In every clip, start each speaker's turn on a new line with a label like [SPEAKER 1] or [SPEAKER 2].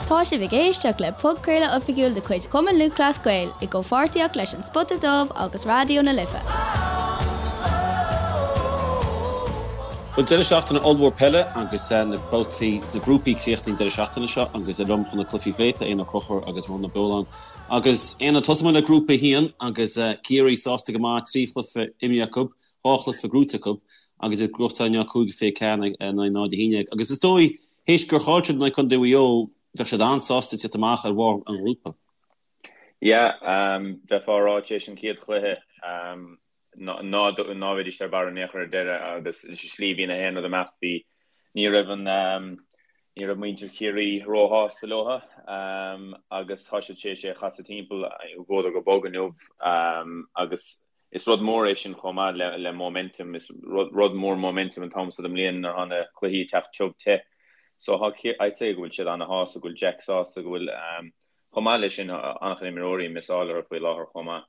[SPEAKER 1] Tá sibh ag éisteacht le podchraoladh oifigiúil de chuid Chumann Lúthchleas Gael i gcomhpháirtíocht leis An Spota Dubh agus Raidió na Life.
[SPEAKER 2] Bhuel, deireadh seachtaine ollmhór peile agus na babhtaí sna grúpaí críochnaithe an deireadh seachtaine seo agus liom chun na cluichí a phlé tá Éanna Ó Conchúir agus Rónán Ó Beoláin. Agus Éanna, tosóidh muid le Grúpa 1 agus Ciarraí sásta go maith, 3 chluiche imeartha acu, 2 chluiche gnóthaithe acu agus iad ag gnóthachtáil inniu 5-24 in aghaidh 0-11. Agus is dóigh, théis gur chaill siad in aghaidh Contae Mhaigh Eo, bheadh siad an-sásta tíocht amach ar bharr an ghrúpa.
[SPEAKER 3] Yeah, bheifeá ag rá tar éis an chéad chluiche ná ná bheidís ar barr in aon chor ar deireadh agus sa slí bhí na haon rud ag imeacht bhí ní raibh an ní raibh muintir Chiarraí róshásta leo agus tá siad tar éis é a chasadh timpeall bhuadar go bog inniu agus Is rud mór é sin chomh maith le le momentum. Is rud mór momentum an t-am so den mbliain nuair atá na cluichí ag teacht tiubh te. So tá I'd say go bhfuil siad ana-shásta, go bhfuil Jack sásta, go bhfuil chomh maith leis sin an-chuid imreoirí ag missáil orthu faoi láthair chomh maith.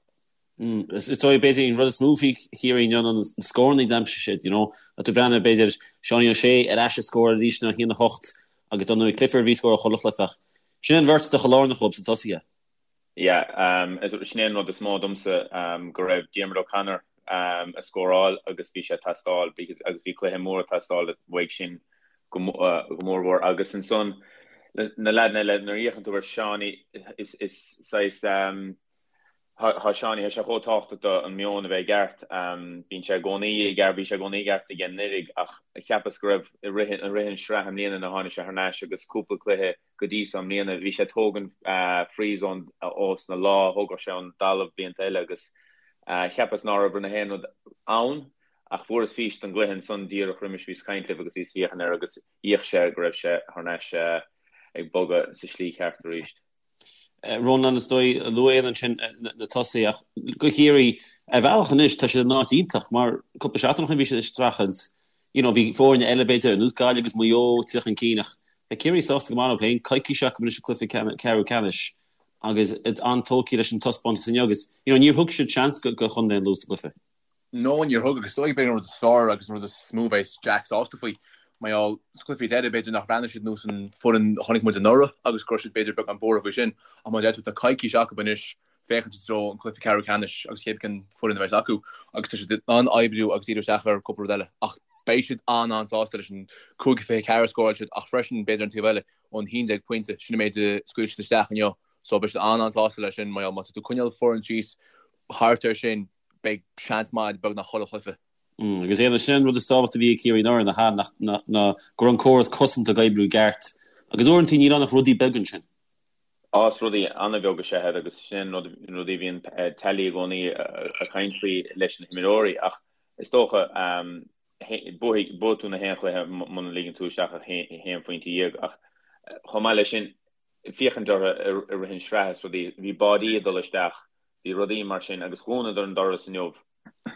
[SPEAKER 2] Is dóigh b'fhéidir an rud is mó faoi Chiarraí inniu ná na scóranna a d'aimsigh siad, you know. Tá tú ag breathnú b'fhéidir Seánie O'Shea ar ais ag scóráil arís ná 1-8 agus dar ndóigh Clifford a bhí ag scóráil chuile chluiche ach sin an bheirt atá chomh lárnach dhóibh sna tosaithe.
[SPEAKER 3] Yeah, sin é an rud is mó domsa, go raibh Diarmuid O'Connor ag scóráil agus bhí sé ag teastáil agus bhí cluiche mór ag teastáil uaidh sin go mórmhór. Agus ansan na leaideanna eile, nuair a fhéachann tú ar Seánie, is saghas, tá Seánie, tá sé chomh tábhachtach do an meon a bheith i gceart. Bíonn sé i gcónaí i gceart, bhí sé i gcónaí i gceart aige anuraidh ach cheapas go raibh i rith an sraith i mbliana nuair a tháinig sé thar n-ais agus cúpla cluiche go dtí so i mbliana. Bhí sé ag tógaint frees ón ós na lá, thógadh sé ón dtalamh blianta eile agus cheapas ná raibh na haon rud ann ach fuaireas fís den gcluiche ansan díreach roimis bhíos ag caint libh agus bhíos ag féachaint air agus d'fhéach sé go raibh sé thar n-ais ag bogadh sa slí cheart arís.
[SPEAKER 2] Rónán, is dóigh, luaigh Éanna ansin na tosaithe ach go Chiarraí, ar bhealach anois tá siad in áit iontach mar cúpla seachtain ó shin bhí siad ag streachailt, you know, bhí foirne eile b'fhéidir ar nós Gaillimh agus Maigh Eo ag tíocht chun cinn ach tá Ciarraí sásta go maith leo féin, coicís acu anois an cluiche ceathrú ceannais agus iad an-tógtha leis an taispeántas inniu agus you know, níor thug siad seans go Chontae an Lú sa gcluiche.
[SPEAKER 4] No, níor thug, agus is dóigh b'fhéidir an rud is fearr agus an rud is mó a bheas Jack sásta faoi, mar gheall, sna cluichí deiridh, b'fhéidir nach bhreathnaigh siad nós an foireann a chonaic muid anuraidh agus go raibh siad b'fhéidir beagán buartha faoi sin, ach mar a deir tú, tá coicís acu anois féachaint i dtreo an cluiche ceathrú ceannais agus cébí cén foireann a bheas acu agus tá siad in ann oibriú agus díriú isteach ar cúpla rud eile ach beidh siad an-an-sásta leis an 5-24 a scóráil siad ach freisin b'fhéidir an taobh eile an 11 pointe, sin an méid a scaoil siad isteach inniu so beidh siad an-an-sásta leis sin mar gheall má tá tú ag coinneáil foireann síos thart air sin beidh seans maith a'd beagnach chuile chluiche.
[SPEAKER 2] Agus Éanna, sin an rud is tábhachtaí a bhí ag Ciarraí anuraidh, nach ea, ná ná go raibh an córas cosanta ag oibriú i gceart. Agus uaireanta níl ann ach rudaí beaga ansin.
[SPEAKER 3] Á, is rudaí an-bheag is ea iad agus sin rud, rudaí a bhíonn Tally i gcónaí ag caint faoi leis na himreoirí ach is dócha buafaidh, buafaidh tú na haon chluiche muna ligeann tú isteach ach haon phointe dhéag ach chomh maith leis sin féachaint orthu i rith an sraith is rudaí, bhí báidí ag dul isteach Bhí rudaí mar sin agus dhúnadar an doras inniu.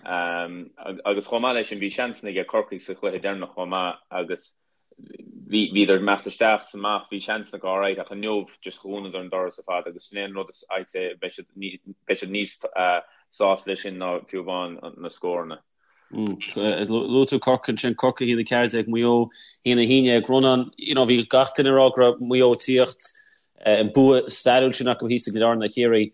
[SPEAKER 3] Agus chomh maith leis sin bhí seansanna aige Corcaigh sa chluiche deireanach chomh maith agus bhí bhíodar ag imeacht isteach is amach, bhí seansanna acu alright ach inniu just dhúnadar an doras ar fad agus sin é an rud is I'd say beidh siad beidh siad níos sásta leis sin ná fiú amháin na scóranna.
[SPEAKER 2] Luaigh tú Corcaigh ansin, Corcaigh 1-14, Maigh Eo 1-11. Rónán, you know, bhí gach duine ag rá go raibh Maigh Eo ag tíocht, an bua stairiúil sin acu thíos i gCill Airne ar Chiarraí.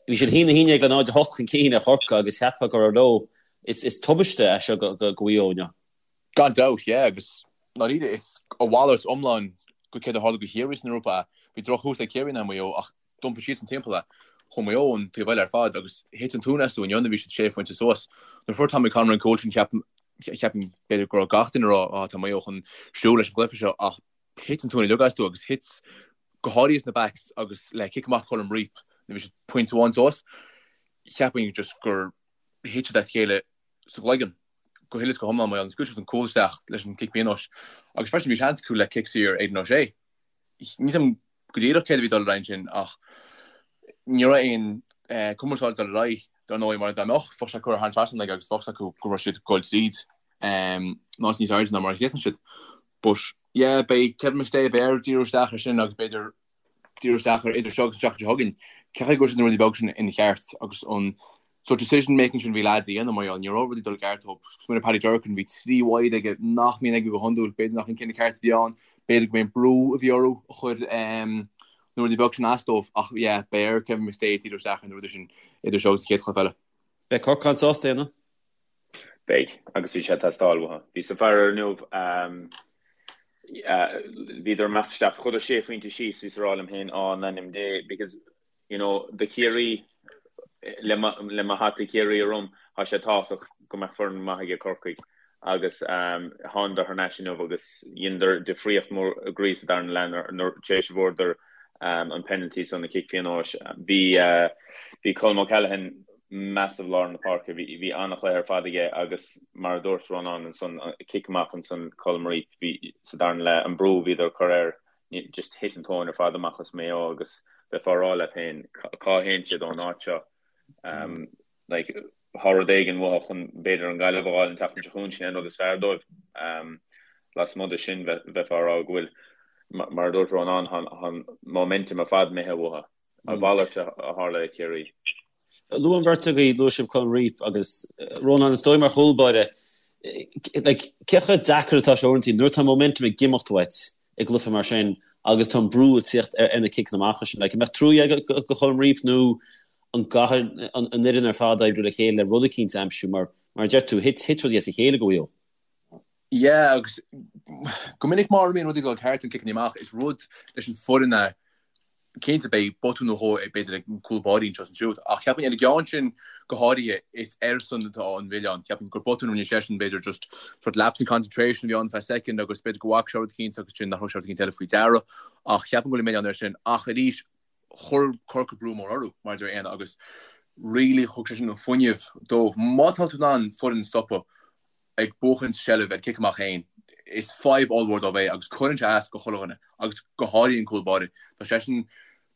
[SPEAKER 2] Bhí siad 1-11 le 0-8 chun cinn ar Chorcaigh agus cheapfá go raibh leo. Is tubaiste é seo go Mhaigh Eo inniu.
[SPEAKER 4] Gan dabht, yeah, agus ndáiríre is a mhalairt iomlán go céard a tharla go Chiarraí san ngrúpa. Bhí drochthús ag Ciarraí in aghaidh Mhaigh Eo ach D'iompaigh siadsan timpeall é. Chuaigh Maigh Eo an taobh eile ar fad agus thit an tóin astu inniu nuair a bhí siad sé phointe suas. Nuair a fuair Tommy Conroy an cúl sin cheap cheapfainn b'fhéidir go raibh gach duine ag rá ah tá Maigh Eo chun siúl leis an gcluiche seo ach thit an tóin uilig astu agus thit go háirithe sna backs agus le cic amach Colm Reape nuair a bhí siad pointe amháin suas cheapfainn just gur thit siad as a chéile sa gcloigeann go huile is go hiomlán mar scaoil siad an cúl isteach leis an cic pionóis agus freisin bhí seans acu le cic saor Aidan O'Shea. Níl a fhios agam go díreach céard a bhí ag dul ar aghaidh ansin ach ní raibh aon cumarsáid ag dul ar aghaidh dar ndóigh mar dá mbeadh, bheadh sé curtha thar an trasnán aige agus bheadh a fhios acu go raibh siad ag dul tríd nó níos airde ná mar a chríochnaigh siad. But yeah, beidh Kevin McStay beidh air díriú isteach ar sin agus b'fhéidir díriú isteach ar idir seo agus an tseachtain seo chugainn. Cén chaoi go bhfuil siad na rudaí beaga sin ina cheart agus an. Sórt decision making sin a bhí leaids a dhéanamh mar gheall ní raibh rudaí ag dul i gceart dóibh. Smaoinigh Paddy Durcan, bhí 3 wide aige nach mbíonn aige go hiondúil, b'fhéidir nach an cinneadh ceart a bhí ann, b'fhéidir go mb'é an brú a bhí orthu a chuir na rudaí beag sin as dóibh ach yeah, beidh ar Kevin McStay díriú isteach ar na rudaí sin idir seo agus an chéad chluiche eile.
[SPEAKER 2] Beidh Corcaigh an-sásta, Éanna.
[SPEAKER 3] Beidh, agus bhí sé ag teastáil uathu. Bhíos ag faire inniu, bhíodar ag imeacht isteach, chuadar sé phointe síos, bhíos ag rá liom féin, á, in ainm Dé, because you know, do Chiarraí, le mo hata Chiarraí orm, tá sé tábhachtach go mbeadh foireann maith aige Corcaigh agus thánadar thar n-ais inniu agus dheineadar difríocht mór groí sa darna leath nuair tar éis a bhfuaireadar an penalty san, an cic pionóis. Bhí bhí Colm O'Callaghan massive lár na páirce, bhí bhí an-chluiche ar fad aige agus mar a dúirt Rónán ansan, cic amach ansan Colm Reape, bhí sa darna leath, an brú a bhíodar ag cur air just thit an tóin ar fad amach as Maigh Eo agus bheifeá ag rá leat féin cá théann siad ón áit seo. Like, tá rud éigin uathu chun b'fhéidir an Ghaillimh a fháil an tseachtain seo chugainn, sin é an rud is fearr dóibh. Lasmuigh de sin bheifeá ag rá go bhfuil, mar a dúirt Rónán, tá an momentum ar fad imithe uathu. A mhalairt a tharla i Ciarraí.
[SPEAKER 2] Luaigh an bheirt agaibh, luaigh sibh Colm Reape agus Rónán, is dóigh mar chúl báire, like, cé chomh deacair atá sé uaireanta nuair atá momentum ag imeacht uait i gcluiche mar sin agus tá an brú ag tíocht ar na ciceanna amach sin. Like, an mbeadh trua agat do Cholm Reape nó an gcaithfidh an fhoireann ar fad oibriú le chéile le rud eicínt a aimsiú mar, mar a deir tú, thit, thit rudaí as a chéile do Mhaigh Eo.
[SPEAKER 4] Yeah, agus go minic má bhíonn rudaí ag dul ceart an ciceanna amach, is rud leis an foireann é Cinnte, beidh botún nó dhó b'fhéidir ag cúl báirí anseo is ansiúd, ach cheapfainn ar an gceann sin go háirithe, is airsean atá an milleán. Cheapfainn gur botún a rinne seisean, b'fhéidir just sort lapse in concentration a bhí ann feadh soicind agus b'fhéidir go bhfaca sé rud eicínt agus sin nach raibh sé rud eicínt eile faoi deara. Ach cheapfainn go bhfuil an milleán air sin. Ach arís, chuir Corcaigh brú mór orthu, mar a deir Éanna, agus really thug sé sin an fuinneamh dóibh. Má tá tú in ann foireann a stopadh, ag buachaint seilbh ar cic amach féin, is fadhb ollmhór dóibh é agus cuireann sé as go chuile dhuine agus go háirithe an cúl báire. Tá seisean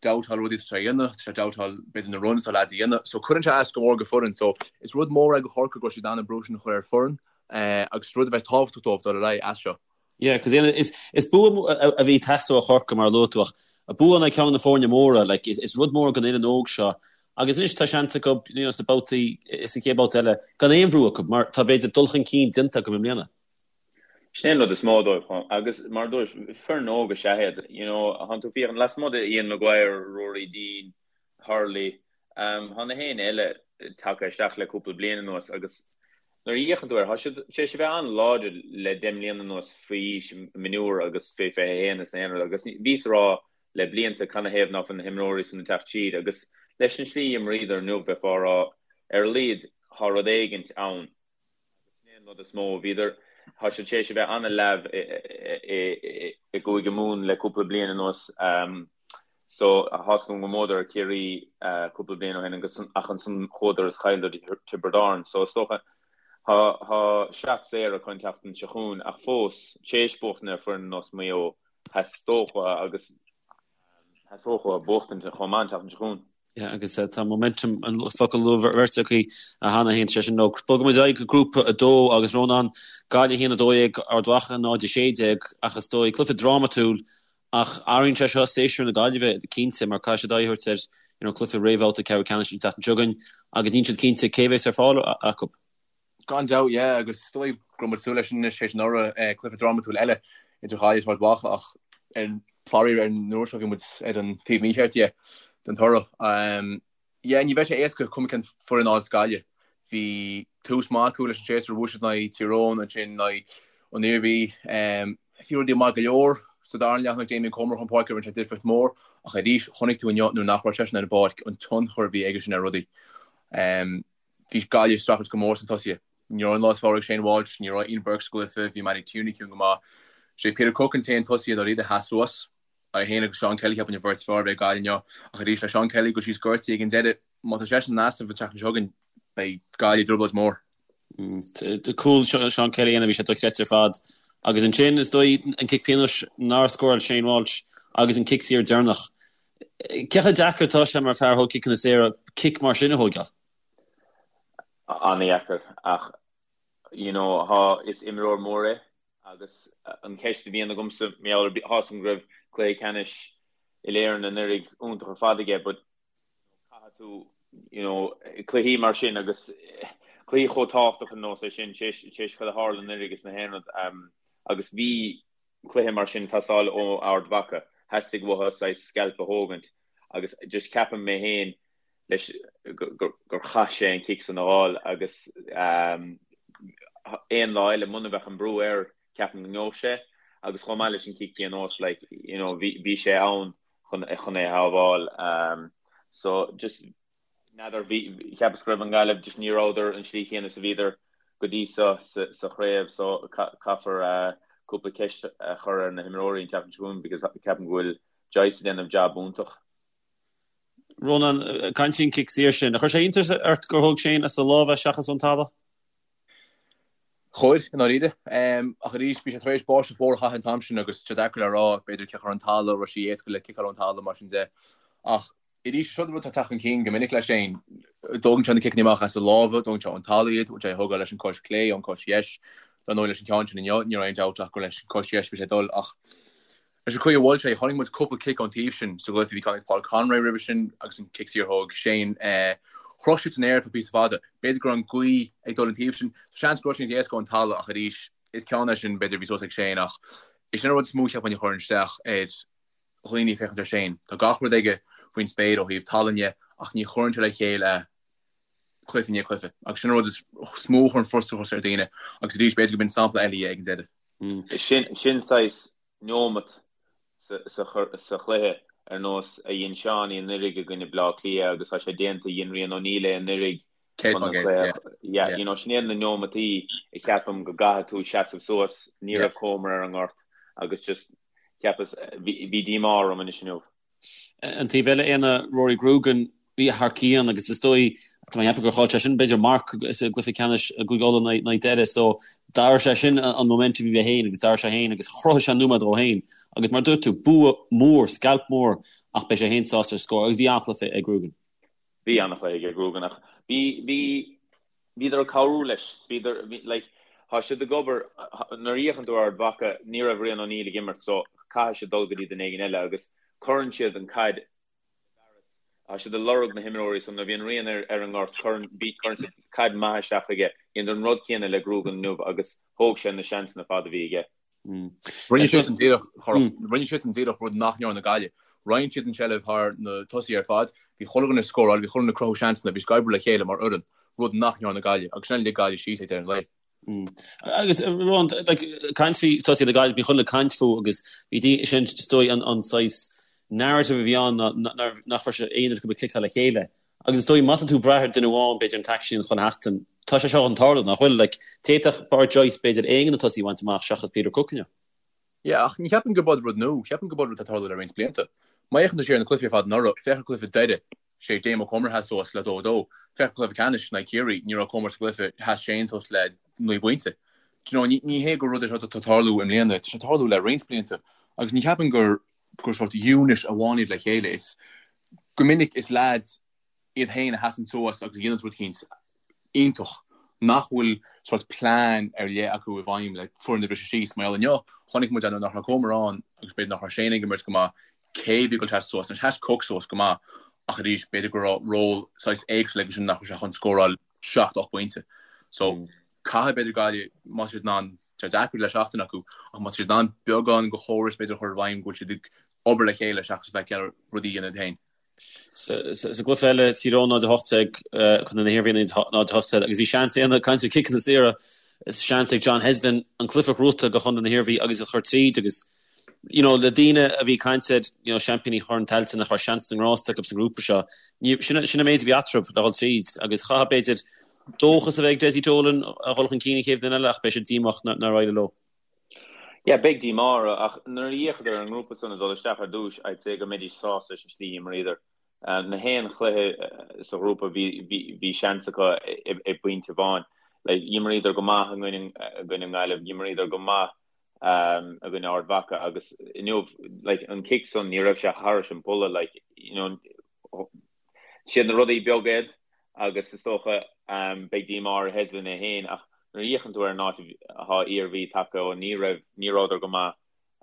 [SPEAKER 4] doubtáil rudaí atá sé a dhéanamh, tá sé doubtáil b'fhéidir na runs atá leaids a dhéanamh so cuireann sé as go mór go foireann so is rud mór é go Chorcaigh go raibh siad in ann an brú sin a chur ar foireann agus rud a bheas tábhachtach dóibh dul ar aghaidh as seo.
[SPEAKER 2] Yeah, cos is bua a bhí ag teastáil ó Chorcaigh mar a luaigh tú ach bua in aghaidh ceann de na foirne móra, like is rud mór don fhoireann óg seo agus anois tá seans acu you know sna babhtaí, sa chéad babhta eile gan aon bhrú acu mar tá b'fhéidir dul chun cinn déanta acu i mbliana.
[SPEAKER 3] Sin é an rud is mó dóibh agus mar a dúirt, foireann óg is ea iad, you know, thánn tú ag féachaint lasmuigh de Ian Maguire, Ruairí Deane, Hurley, Tá na héinne eile tagtha isteach le cúpla bliain anuas agus nuair a fhéachann tú air, tá siad tar éis a bheith an-láidir le 10 mbliana anuas faoi aois mionúr agus fé 21 is aon rud agus bhíos ag rá le blianta canathaobh ná fuil na himreoirí san ag teacht siar agus leis an slí a imríodar inniu bheifeá ag rá ar a laghad tá rud éigint ann. Agus sin é an rud is mó. Bhíodar, tá siad tar éis a bheith an-leamh i gCúige Mumhan le cúpla bliain anuas. So, tá's agam go mbuadar ar Chiarraí cúpla bliain ó shin agus ach ansan chuadar is chailleadar do Tiobraid Árann. So, is dócha, tá tá seat saor acu an tseachtain seo chugainn ach fós, tar éis buachtaint ar foireann ar nós Maigh Eo, theastódh uathu agus theastódh uathu buachtaint chomh maith an tseachtain seo chugainn.
[SPEAKER 2] Yeah, agus tá momentum an focal a luaigh an bheirt agaibh cheana féin, sé sin nó bogfaidh muid ar aghaidh go grúpa 2 agus Rónán, Gaillimh 1 12, Ard Mhacha 0 16 ach is dóigh cluiche drámatúil ach athraíonn sé seo séasúr na Gaillimhe cinnte mar caithfidh siad aghaidh a thabhairt ar you know, cluiche réamhbhabhta ceathrú ceannais an tseachtain seo chugainn agus níl siad cinnte cé bheas ar fáil acu.
[SPEAKER 4] Gan dabht, yeah, agus is dóigh go raibh muid ag súil leis sin anois théis anuraidh, cluiche drámatúil eile idir Ghaillimh is Ard Mhacha ach ar faraor ar an uair seo bhí muid ar an taobh mícheart dhe den toradh. Yeah, ní bheidh sé éasca cuma cén foireann a fháil Gaillimh. Bhí tús maith acu leis an séasúr, bhuaigh siad in aghaidh Tír Eoghain, ansin in aghaidh an Iarmhí. Bhí rudaí maith go leor sa dara leath tháinig Damien Comer chun páirce rinne sé difríocht mhór ach arís chonaic tú inniu nuair nach raibh seisean ar an bpáirc an tionchar a bhí aige sin ar rudaí. Bhí Gaillimh ag streachailt go mór sna tosaithe. Ní raibh an lá is fearr ag Shane Walsh, ní raibh Ian Burke sa gcluiche, bhí Mattie Tierney ciúin go maith. Sé Peter Cooke an t-aon tosaí i ndáiríre a sheas suas. É féin agus Seán Kelly cheapfainn an bheirt is fearr a bhí ag Gaillimh inniu. Ach arís le Seán Kelly ag dul síos gortaithe ag an deireadh, má tá seisean in easnamh an tseachtain seo chugainn, beidh Gaillimh i dtrioblóid mhór.
[SPEAKER 2] Cúl Seán Kelly a bhí sé dochreidte ar fad. Agus ansin, is dóigh, an cic pionóis nár scóráil Shane Walsh agus an cic saor deireanach. Cé chomh deacair atá sé mar fear a thóg ciceanna saora cic mar sin a thóigeáil?
[SPEAKER 3] An-dheacair ach you know thá, is imreoir mór é agus an cheist a bhíonn agamsa mar gheall ar, tá's agam go raibh cluiche ceannais Uile-Éireann anuraidh iontach ar fad aige but you know caithfidh tú. You know, cluichí mar sin agus cluichí chomh tábhachtach ar nós é sin, tar éis cad a tharla anuraidh is na haon rud, agus bhí cluiche mar sin ag teastáil ó Ard Mhacha, theastaigh uathu saghas scalp a thógaint agus just ceapaim mé féin leis gur chaith sé an cic san a fháil agus aon lá eile muna bheadh an brú air ceapaim go ngeobhadh sé agus chomh maith leis an cic pionóis like you know bhí sé ann chun chun é a shábháil so just n'fheadar bhí cheapas go raibh an Ghaillimh just ní rabhadar an slí chéanna is a bhíodar go dtí seo sa sa chraobh so caithfear cúpla ceist a chur ar na himreoirí an tseachtain seo chugainn because ceapaim go bhfuil Joyce ag déanamh jab iontach.
[SPEAKER 2] Rónán, caint faoin cic saor sin. Ar chuir sé iontas ort gur thóg Shane as a lámh é seachas ón talamh?
[SPEAKER 4] Chuir, i ndáiríre. Ach arís, bhí sé tar éis báisteach mhór a chaitheamh an t-am sin agus tá sé deacair le rá, b'fhéidir ciceáil ar an talamh, raibh sé éasca le ciceáil ón talamh mar sin de. Ach arís, seo rud atá ag teacht chun cinn go minic le Shane. Dógann sé na ciceanna amach as a lámha, dógann sé ón talamh iad, bhfuil sé ag thógáil leis an cois clé, ón cois dheis. Dar ndóigh leis an ceann sin inniu, ní raibh aon dabht ach gur leis an cois dheis bhí sé ag dul ach Leis an chaoi a bhuail sé, chonaic muid cúpla cic ón taobh sin sa gcluiche. Bhí ceann ag Paul Conroy roimhe sin agus an cic saor a thóg Shane. Chroch siad san aer ar feadh píosa fada. B'fhéidir go raibh an ghaoth ag dul an taobh sin. Seans go raibh sé níos éasca ón talamh ach arís, is ceann é sin b'fhéidir a bhí suas ag Shane ach is sin an rud is mó cheapfainn a chuireann isteach ar dhaoine ag féachaint ar Shane. Tá gach rud aige faoin spéir ó thaobh tallainne ach ní chuireann sé le chéile cluiche i ndiaidh cluiche agus sin an rud is mó a chuireann frustrachas ar dhaoine agus arís b'fhéidir go b'in sampla eile dhe ag an deireadh.
[SPEAKER 3] Sin saghas neomat sa chluiche ar nós a dhein Seánie anuraidh i gcoinne Bleá Cliath agus tá sé déanta, dhein Rian O'Neill é anuraidh chun an cluiche, yeah, you know, sin iad na neomataí a cheapaim go gcaithfidh tú seasamh suas, ní raibh Comer ar an ngort agus just cheapas, bhí díomá orm anois inniu.
[SPEAKER 2] An taobh eile, Éanna, Rory Grugan, bhí thar cionn agus is dóigh, tá mé ag ceapadh gur chaill sé sin b'fhéidir marc sa gcluiche ceannais i gCúige Uladh in aghaidh Doire so d'athraigh sé sin an momentum a bhí aige féin agus d'athraigh sé féin agus chruthaigh sé nóiméad dhó féin agus mar a dúirt tú, bua mór, scalp mór ach beidh sé féin sásta ar scór agus bhí an-chluiche ag Grugan.
[SPEAKER 3] Bhí an-chluiche ag Grugan ach bhí, bhí, Bhíodar ag cabhrú leis. Bhíodar, like, tá siad ag obair, nuair a fhéachann tú ar Ard Mhacha, ní raibh Rian O'Neill ag imirt so caithfidh siad dul go dtí duine éigin eile agus cuireann siad an caid i bhfearas. Tá siad ag lorg na himreoirí so nuair a bhíonn Rian ar, ar an ngort, cuireann, bhí, cuireann siad caid maith isteach chuige. Dheineadar an rud céanna le Grugan inniu agus thóg sé na seansanna fada a bhí aige.
[SPEAKER 4] Rinne siad an díreach, rinne siad an díreach rud nach ndearna Gaillimh. Roinn siad an tseilbh thar na tosaithe ar fad, bhí chuile dhuine ag scóráil, bhí chuile dhuine ag cruthú seansanna, bhí siad ag oibriú le chéile mar fhoireann, rud nach ndearna Gaillimh, agus sin a lig Gaillimh síos ag deireadh an lae.
[SPEAKER 2] Agus Ron, like, caint faoi tosaithe na Gaillimhe, bhí chuile dhuine ag caint fúthu agus bhí sin is dóigh an, an saghas narrative a bhí ann ná nach raibh sé aon rud acu ag cliceáil le chéile. Agus is dóigh, má tá tú ag brath ar duine amháin, b'fhéidir an t-aicsean chun theacht, tá sé seo chun tarlú, nach bhfuil? Like, d'fhéadfadh Pádraic Joyce, b'fhéidir, aon de na tosaithe a bhaint amach seachas Peter Cooke inniu.
[SPEAKER 4] Yeah, ach ní cheapaim gurb rud nua, cheapaim gurb rud atá ag tarlú le roinnt blianta. Má fhéachann tú siar ar na cluichí ar fad anuraidh, féach ar cluiche Doire, sé Damo Comer a sheas suas le 2-2. Féach ar cluiche ceannais in aghaidh Ciarraí, ní raibh Comer sa gcluiche, sheas Shane suas le 9 bpointe. Do you know, ní, ní hé gur rud é seo atá ag tarlú i mbliana, tá sé ag tarlú le roinnt blianta. Agus ní cheapaim gur gur sórt unit amháin iad le chéile. Is go minic is leaids iad féin a sheasann suas agus a dhéanann rud eicínt iontach nach bhfuil sórt plean ar leith acu i bhfeidhm le foireann a bhriseadh síos. Mar gheall inniu, chonaic muid nuair nach raibh Comer ann agus b'fhéidir nach raibh Shane ag imirt go maith, cé a bhí ag dul seasamh suas. Anois sheas Cooke suas go maith ach arís b'fhéidir go raibh ról saghas éagsúil aige sin nach raibh sé chun scóráil 7, 8 bpointe. So caithfidh b'fhéidir Gaillimh, má tá siad in ann, tá sé deacair le seachtain acu, ach má tá siad in ann beagán de chóras b'fhéidir a chur i bhfeidhm go bhfuil siad ag obair le chéile seachas bheith ag iarraidh rudaí a dhéanamh iad féin.
[SPEAKER 2] Sa gcluiche eile, Tír Eoghain 0-18, Contae na hIarmhí 0-18 agus bhí seans ag caint ar chiceanna saora, seans ag John Heslin an cluiche a ghnóthú do Chontae na hIarmhí agus a chur tríd agus you know, le daoine a bhí ag caint ar, you know, seaimpíní Chorn Tailteann nach raibh seans sa ngrást acu sa ngrúpa seo, ní, sin, sin an méid a bhí eatarthu le dhul tríd agus chaithfeadh b'fhéidir dóchas a bheith ag Dessie Dolan a dhul chun cinn an chéad bhliain eile ach beidh sé díomách nár éirigh leo.
[SPEAKER 3] Yeah, beidh díomá orthu ach nuair a d'fhéachadar ar an ngrúpa san ag dul isteach ar dtús, I'd say go mbeidís sásta leis an slí a d'imríodar. Na haon chluiche sa ghrúpa bhí, bhí, bhí seans acu i bpointe amháin. Like, d'imríodar go maith i gcoinne, i gcoinne an Ghaillimh, d'imríodar go maith i gcoinne Ard Mhacha agus inniu like an cic san ní raibh sé thairis an bpolla like you know siad na rudaí beaga iad agus is dócha beidh díomá ar Heslin é féin ach nuair a fhéachann tú ar an áit atá Iarmhí tagtha ó ní raibh ní rabhadar go maith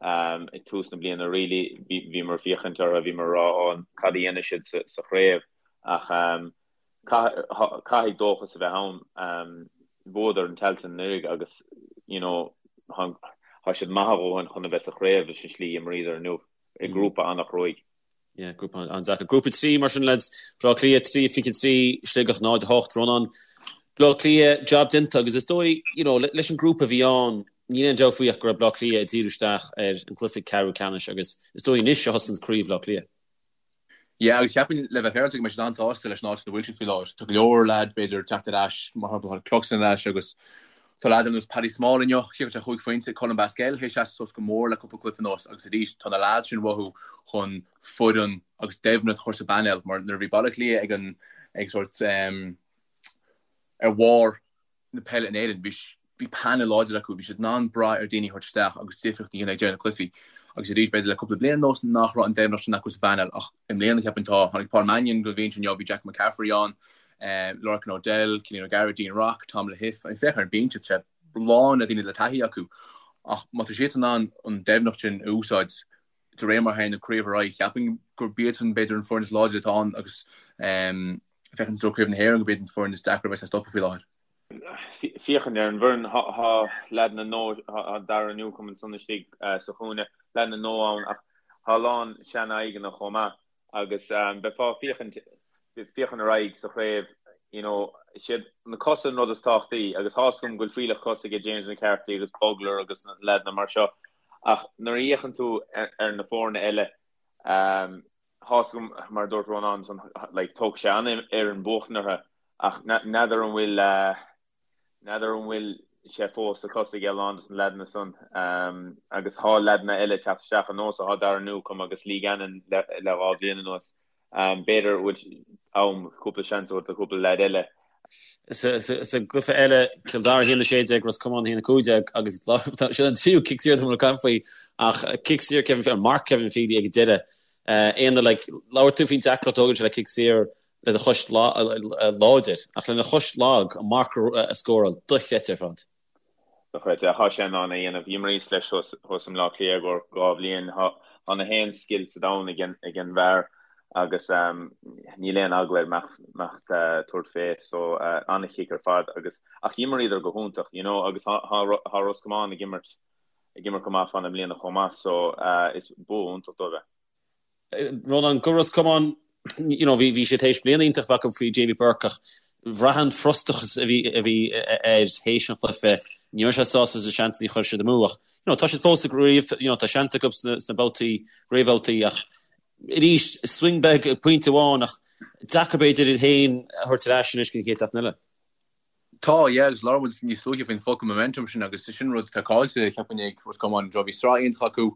[SPEAKER 3] ag tús na bliana really bhíomar ag féachaint orthu bhíomar ag rá ó cad a dhéanfaidh siad sa, sa chraobh ach. Caithfidh dóchas a bheith ann. Bhuadar an Tailteann anuraidh agus you know tá siad maith a dhóthain chun a bheith sa chraobh leis an slí a imríodar inniu i ngrúpa an-chruaidh.
[SPEAKER 2] Yeah, grúpa an-deacair. Grúpa 3 mar sin lads, Bleá Cliath 3, 23, Sligeach 0, 8, Rónán. Bleá Cliath, job déanta agus is dóigh, you know, leis an grúpa a bhí ann, níl aon dabht faoi ach go raibh Bleá Cliath ag díriú isteach ar an gcluiche ceathrú ceannais agus is dóigh anois a thosaíonn craobh Bhleá Cliath.
[SPEAKER 4] Yeah, agus cheapfainn le bheith féaráilte go mbeidh siad an-sásta leis an áit ina bhfuil siad faoi láthair. Tá go leor leaids b'fhéidir ag teacht ar ais, mar shampla tá Cluxton ar ais agus tá leaids ar nós Paddy Small inniu, chiceáil sé chúig phointe, Colm Basquel théis seasamh suas go mór le cúpla cluiche anuas agus arís tá na leaids sin uathu chun foireann agus doimhneacht a chur sa bpainéal mar nuair a bhí Baile Átha Cliath ag an ag sórt ar bharr na peile in Éirinn. Bhí bhí painéal láidir acu, bhí siad in ann brath ar daoine a thabhairt isteach agus difríocht a dhéanamh ag deireadh na cluichí. Agus arís, b'fhéidir le cúpla bliain anuas nach raibh an doimhneacht sin acu sa bpainéal ach i mbliana cheapfainn tá. Tháinig Paul Mannion don bhinse inniu, bhí Jack McCaffrey ann, Lorcan O'Dell, Cillian O'Gara, Dean Rock, Tom Lahiff. I mean, féach ar an binse, tá sé lán le daoine le taithí acu. Ach má tá siad in ann an doimhneacht sin a úsáid de réir mar a théann an craobh ar aghaidh, cheapfainn gurb iadsan b'fhéidir an foireann is láidre atá ann agus féachaint i dtreo Craobh na hÉireann gurb iad an foireann is deacra a bheas le stopadh faoi láthair.
[SPEAKER 3] Féachaint ar an bhfoireann, tá leaideanna nua, tá Darragh Newcombe ansan istigh sa chúinne, leaideanna nua ann ach tá a lán sean-aghaidheanna chomh maith agus beifeá ag féachaint, féachaint ar aghaidh sa chraobh, you know, siad na cosa an rud is tábhachtaí agus tá's agam go bhfuil fuílleach cos aige James McCarthy agus Bugler agus na leaideanna mar seo ach nuair a fhéachann tú ar na foirne eile, Tá's agam, mar a dúirt Rónán ansan, like, tógfaidh sé an-fhoireann buachtaint orthu ach n'fheadar an bhfuil, n'fheadar an bhfuil sé fós sa cos ag a lán dos na leaideanna san. Agus thá leaideanna eile ag teacht isteach ar nós, thá Darragh Newcombe agus Lee Gannon le le dhá bhliain anuas. B'fhéidir bhfuil am cúpla seans a thabhairt do chúpla leaid eile.
[SPEAKER 2] Sa gcluiche eile, Cill Dara 1-16, Ros Comáin 1-15 agus sin an tríú cic saor atá ag caint faoi ach cic saor Kevin, ar marc Kevin Feely ag an deireadh. Éanna, like, labhair tú faoin deacracht a thógann sé le cic saor le do chois láidir ach lena chois lag an marc a scóráil, dochreidte ar fad.
[SPEAKER 3] Dochreidte. Thá sé in ann é a dhéanamh. D'imríos leis thuas i mBleá Cliath i gcomhair dhá bhliain. Thá na haon scil sa domhan ag an bhfear agus níl aon eagla air imeacht tabhairt fé. So an-chic ar fad agus ach d'imríodar go hiontach, you know, agus thá Ros Comáin ag imirt ag imirt go maith fá na mbliana chomh maith so is bua iontach dóibh é.
[SPEAKER 2] Rónán, do Ros Comáin, you know, bhí, bhí siad théis bliain iontach a bheith acu faoi Jamie Burke ach bhraith an frustrachas a bhí, a bhí air théis an chluiche, ní raibh sé sásta leis na seansanna a chuir siad amú ach, you know, tá siad fós sa gcraobh, you know, tá seans acu sna, sna babhtaí, réamhbhabhtaí ach arís, swing beag, pointe amháin ach deacair b'fhéidir iad féin a thabhairt ar ais anois go dtí an chéad seachtain eile.
[SPEAKER 4] Tá, yeah, agus labhair muid níos luaithe faoin focal momentum sin agus sin rud atá caillte, cheapfainn, ag Ros Comáin. Bhí sraith iontach acu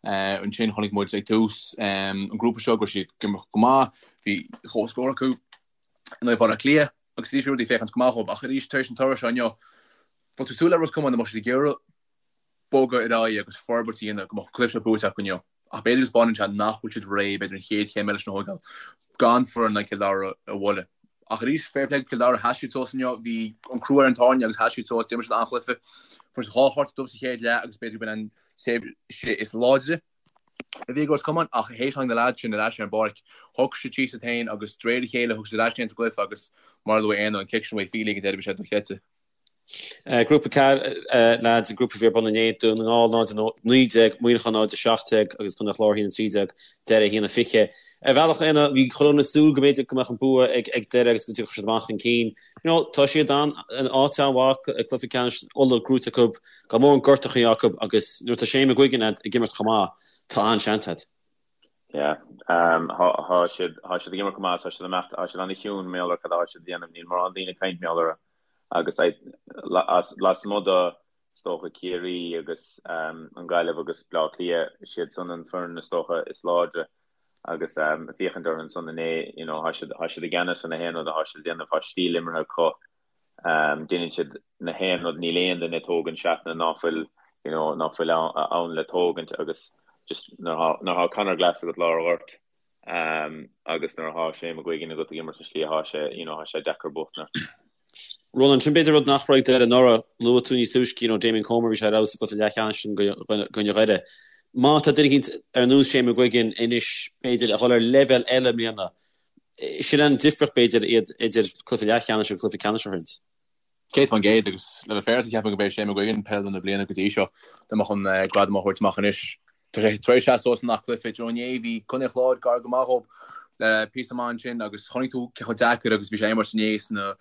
[SPEAKER 4] ansin, chonaic muid ag tús an grúpa seo go raibh siad ag imirt go maith, bhí comhscór acu in aghaidh Bhaile Átha Cliath agus arís bhí rudaí ag féachaint go maith dhóibh ach arís tar éis an toradh seo inniu, bheadh tú ag súil le Ros Comáin dá mbeadh siad ag iarraidh bogadh ar aghaidh agus forbairt a dhéanamh go mbeadh an cluiche seo buaite acu inniu. Ach b'fhéidir go spáineann sé nach bhfuil siad réidh, b'fhéidir an chéad chéim eile sin a thógáil gan foireann like Cill Dara a bhualadh. Ach arís, fair play do Chill Dara, sheas siad suas inniu, bhí an crú ar an tairne agus sheas siad suas, d'imir siad an-chluiche. Fuair siad dhá chárta dubh sa chéad leath agus b'fhéidir go b'in an tréimhse is láidre a bhí ag Ros Comáin ach théis tháinig na leaids sin ar ais ar an bpáirc, thug siad síos iad féin agus de réir a chéile thug siad ar ais iad féin sa gcluiche agus mar a luaigh Éanna, an cic sin uaidh Feely ag an deireadh bhí sé dochreidte.
[SPEAKER 2] Grúpa 4, lads, an grúpa a bhí ar bun inné, Dún na nGall 0, 19, Muineachán 0, 17 agus Contae an Chláir 1, 13, Doire 1, 20. Ar bhealach, Éanna, bhí chuile dhuine ag súil go mb'fhéidir go mbeadh an bua ag Doire agus go dtiocfadh siad amach chun cinn. You know, tá siad in áit an-mhaith ag cluiche ceannais Uladh gnóite acu, gan mórán gortachaí acu agus nuair atá Shane McGuigan ag imirt chomh maith, tá an-seans agat.
[SPEAKER 3] Yeah. Thá siad, thá siad ag imirt go maith, tá siad ag imeacht, thá siad an-chiúin mar gheall ar cad atá siad a dhéanamh, níl mórán daoine ag caint mar gheall orthu agus lasmuigh de, is dócha, Ciarraí agus an Ghaillimh agus Bleá Cliath, siad san an foireann is dócha is láidre agus féachaint orthu ansan inné, you know, thá siad, thá siad i gceannas ar na haon rud athá siad a dhéanamh, thá stíl imeartha acu. Déanann siad na haon rud, níl aon duine ag tógaint seatanna ná fuil you know ná fuil ann le tógaint agus just nuair atá Conor Glass agat lár an ghoirt agus nuair atá Shane McGuigan agat ag imirt an slí atá sé you know tá sé deacair buachtaint ort.
[SPEAKER 2] Ronan, sin b'fhéidir rud nach raibh ag Doire anuraidh, luaigh tú níos túisce you know Damien Comer bhí sé ar fheabhas sa gcluiche leathcheannais sin i gcoinne Dhoire. Má tá duine eicínt ar nós Shane McGuigan anois b'fhéidir a dhul ar leibhéal eile i mbliana. Sin an difríocht, b'fhéidir, idir cluiche leathcheannais agus cluiche ceannais a throid.
[SPEAKER 4] 100% agus le bheith féaráilte ceapaim gurb é Shane McGuigan peileadóir na bliana go dtí seo. Dá mbeadh an gradam á thabhairt amach anois. Tá sé tar éis seasamh suas i ngach cluiche. Do you know inné bhí Contae an Chláir gar go maith dhób le píosa maith ansin agus chonaic tú cé chomh deacair agus bhí sé imirt inné sna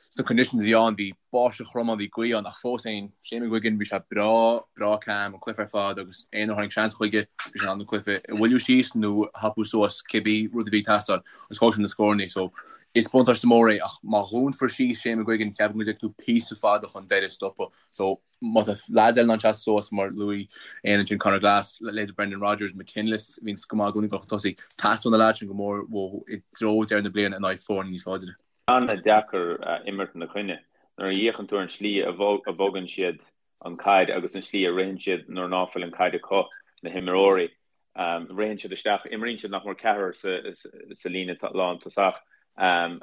[SPEAKER 4] sna conditions a bhí ann. Bhí báisteach throm ann, bhí gaoth ann ach fós féin Shane McGuigan bhí sé breá breá calm an cluiche ar fad agus aon uair a tháinig seans chuige bhí sé in ann an cluiche a mhoilliú síos nó a thapú suas cibé rud a bhí ag teastáil agus thóg sé na scóranna so Is buntáiste mór é ach má dhúnfar síos Shane McGuigan ceapaim go dtiocfaidh tú píosa fada chun deireadh stopadh. So má tá leaids eile in ann seasamh suas mar luaigh Éanna ansin Conor Glass, leithéid Brendan Rogers, McKinless a bhíonns go maith i gcónaí ag dul chun tosaigh, teastóidh na leaids sin go mór uathu i dtreo deireadh na bliana in aghaidh foirne níos láidre.
[SPEAKER 3] An-deacair imirt ina coinne. Nuair a fhéachann tú ar an slí a bhogann siad an caid agus an slí a ritheann siad nuair ná fuil an caid acu, na himreoirí, Ritheann siad isteach, imríonn siad nach mór ceathrar sa líne lántosach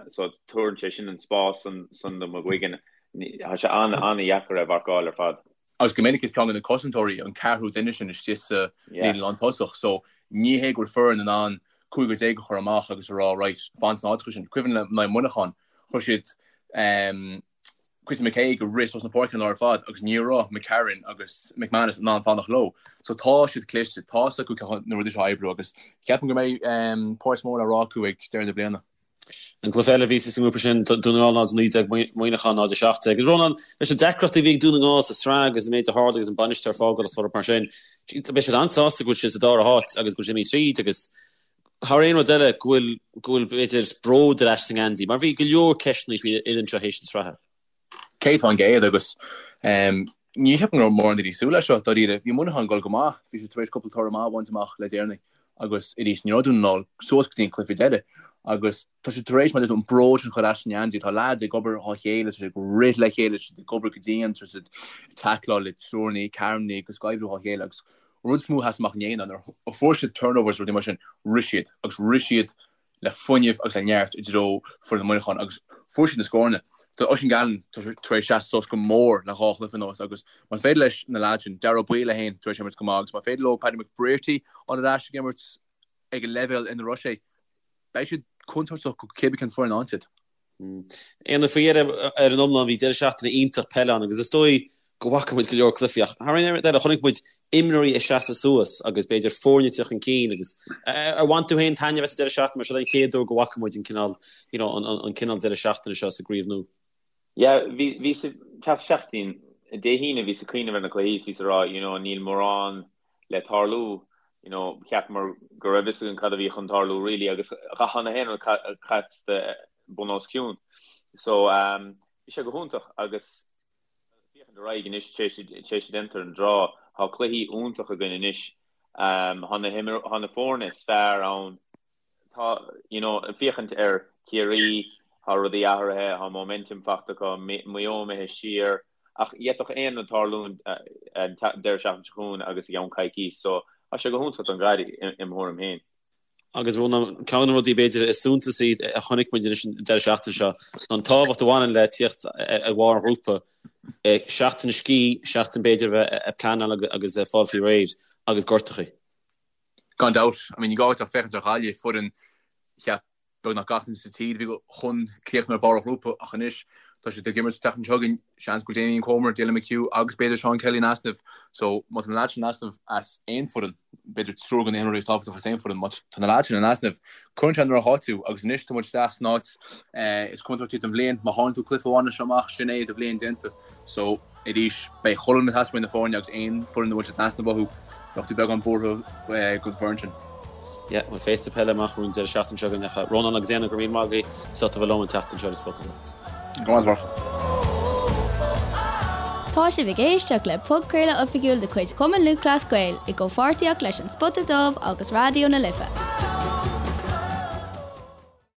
[SPEAKER 3] so tabharann sé sin an spás san do McGuigan. Tá sé an-an-dheacair é a mharcáil ar fad.
[SPEAKER 4] Agus go minic is ceann de na cosantóirí an ceathrú duine sin istigh sa líne lántosach so ní hé go bhfuil foireann in ann cúigear déag a chur amach agus a rá right, fan sna háiteacha sin. Cuimhin liom in aghaidh Muineacháin, chuir siad Chrissy McKaigue ag rith suas na páirce an lá ar fad agus ní raibh McCarron agus McManus in ann fanacht leo. So tá siad cliste, tá 's acu cé na rudaí seo a oibriú agus ceapaim go mbeidh páirt mór le rá acu ag deireadh na bliana.
[SPEAKER 2] An cluiche eile a bhí sa ngrúpa sin, Dún na nGall 0-19, Muineachán 0-17. Agus Rónán, leis na deacrachtaí a bhí ag Dún na nGall sa tsraith agus an méid a tharla agus an bainisteoir ag fágáil agus mar sin, beidh siad an-sásta go bhfuil siad sa dara háit agus go bhfuil siad imithe tríd agus thar aon rud eile go bhfuil, go bhfuil b'fhéidir bród ar ais sa ngeansaí mar bhí go leor ceisteanna faoin fhoireann seo théis na sraithe.
[SPEAKER 4] 100% agus ní cheapaim go raibh mórán daoine ag súil leis seo dáiríre. Bhí Muineachán ag dul go maith, bhí siad tar éis cúpla toradh maith a bhaint amach le deireanaí agus arís ní raibh Dún na nGall suas go dtí an cluiche deiridh agus tá siad tar éis mar a deir tú an bród sin a chur ar ais sa ngeansaí. Tá leaids ag obair dhá chéile, tá siad ag rith le chéile, tá siad ag obair go dian, tá siad ag tackláil le triúrnaí, ceathrúnaí agus ag oibriú dhá chéile agus An rud is mó a sheas amach inné ná nuair a fuair siad turnovers rudaí mar sin, rith siad agus rith siad le fuinneamh agus le neart i dtreo foireann Mhuineacháin agus fuair siad na scóranna. Tá Oisín Gallen tar éis seasamh suas go mór le dhá chluiche anuas agus más féidir leis na leaids sin, Daire Ó Baoill é féin tar éis imirt go maith agus má féidir leo Paddy McBrearty a fháil ar ais ag imirt ag an leibhéal ina raibh sé, beidh siad contúirteach go cibé cén foireann a fhaigheann siad.
[SPEAKER 2] Éanna, faoi dheireadh ar an iomlán bhí deireadh seachtaine iontach peile ann agus is dóigh go bhfaca muid go leor cluichí ach thar aon rud eile chonaic muid imreoirí ag seasamh suas agus b'fhéidir foirne ag teacht chun cinn agus ar bhain tú féin taitneamh as an deireadh seachtaine mar seo an chéad uair go bhfaca muid an cineál you know an an cineál deireadh seachtaine seo sa gcraobh nua.
[SPEAKER 3] Yeah, bhí bhí sa seachtain Dé hAoine bhíos ag cuimhneamh ar na cluichí is bhíos ag rá you know níl mórán le tarlú, you know, cheapamar go raibh fhios againn cad a bhí chun tarlú really agus chan aon rud casta bun os cionn. So um, bhí sé go hiontach agus féachaint ar aghaidh anois tar éis déantar an draw, tá cluichí iontach againn anois. Um, tá na, tá na foirne is fearr ann Tá, you know, féachaint ar Ciarraí, tá rudaí athraithe, tá momentum faighte acu, Maigh Eo imithe siar, ach d'fhéadfadh aon rud tarlú an deireadh seachtaine seo chugainn agus i gceann coicís, so tá sé go hiontach don gcaid im thuairim féin.
[SPEAKER 2] Agus Rónán, ceann de na rudaí b'fhéidir is suntasaí a chonaic muid anois an deireadh seachtaine seo ná an tábhacht a bhaineann le tíocht ar bharr an ghrúpa, seachtain scíth, seachtain b'fhéidir a bheith ag pleanáil agus ag fáil faoi réir agus gortachaí.
[SPEAKER 4] Gan dabht. I mean, ní gá duit ach féachaint ar Ghaillimh, foireann cheap beagnach gach duine sa tír a bhí chun críochnú ar barr an ghrúpa ach anois tá siad ag imirt an tseachtain seo chugainn, seans go bhfuil Damien Comer, Dylan McHugh agus b'fhéidir Seán Kelly in easnamh. So má tá na leaids sin in easnamh as aon foireann, b'fhéidir triúr de na himreoirí is tábhachtacha as aon foireann, má tá na leaids sin in easnamh, cuireann sé i ndroch-áit tú agus anois tá muid isteach san áit is contúirtí den bhliain. Má chailleann tú cluiche amháin as seo amach, sin é do bhliain déanta. So. Arís, beidh chuile dhuine ag teastáil uaidh na foirne agus aon foireann a bhfuil siad in easnamh uathu, bheadh tú beagán buartha don foireann sin.
[SPEAKER 2] Yeah, bhuel féasta peile amach romhainn an deireadh seachtaine seo chugainn ach Rónán agus Éanna, go raibh míle maith agaibh as ucht a bheith liom an tseachtain seo ar An Spota Dubh.
[SPEAKER 4] Go raibh maith agat.
[SPEAKER 1] Tá sibh ag éisteacht le podchraoladh oifigiúil de chuid Chumann Lúthchleas Gael i gcomhpháirtíocht leis An Spota Dubh agus Raidió na Life.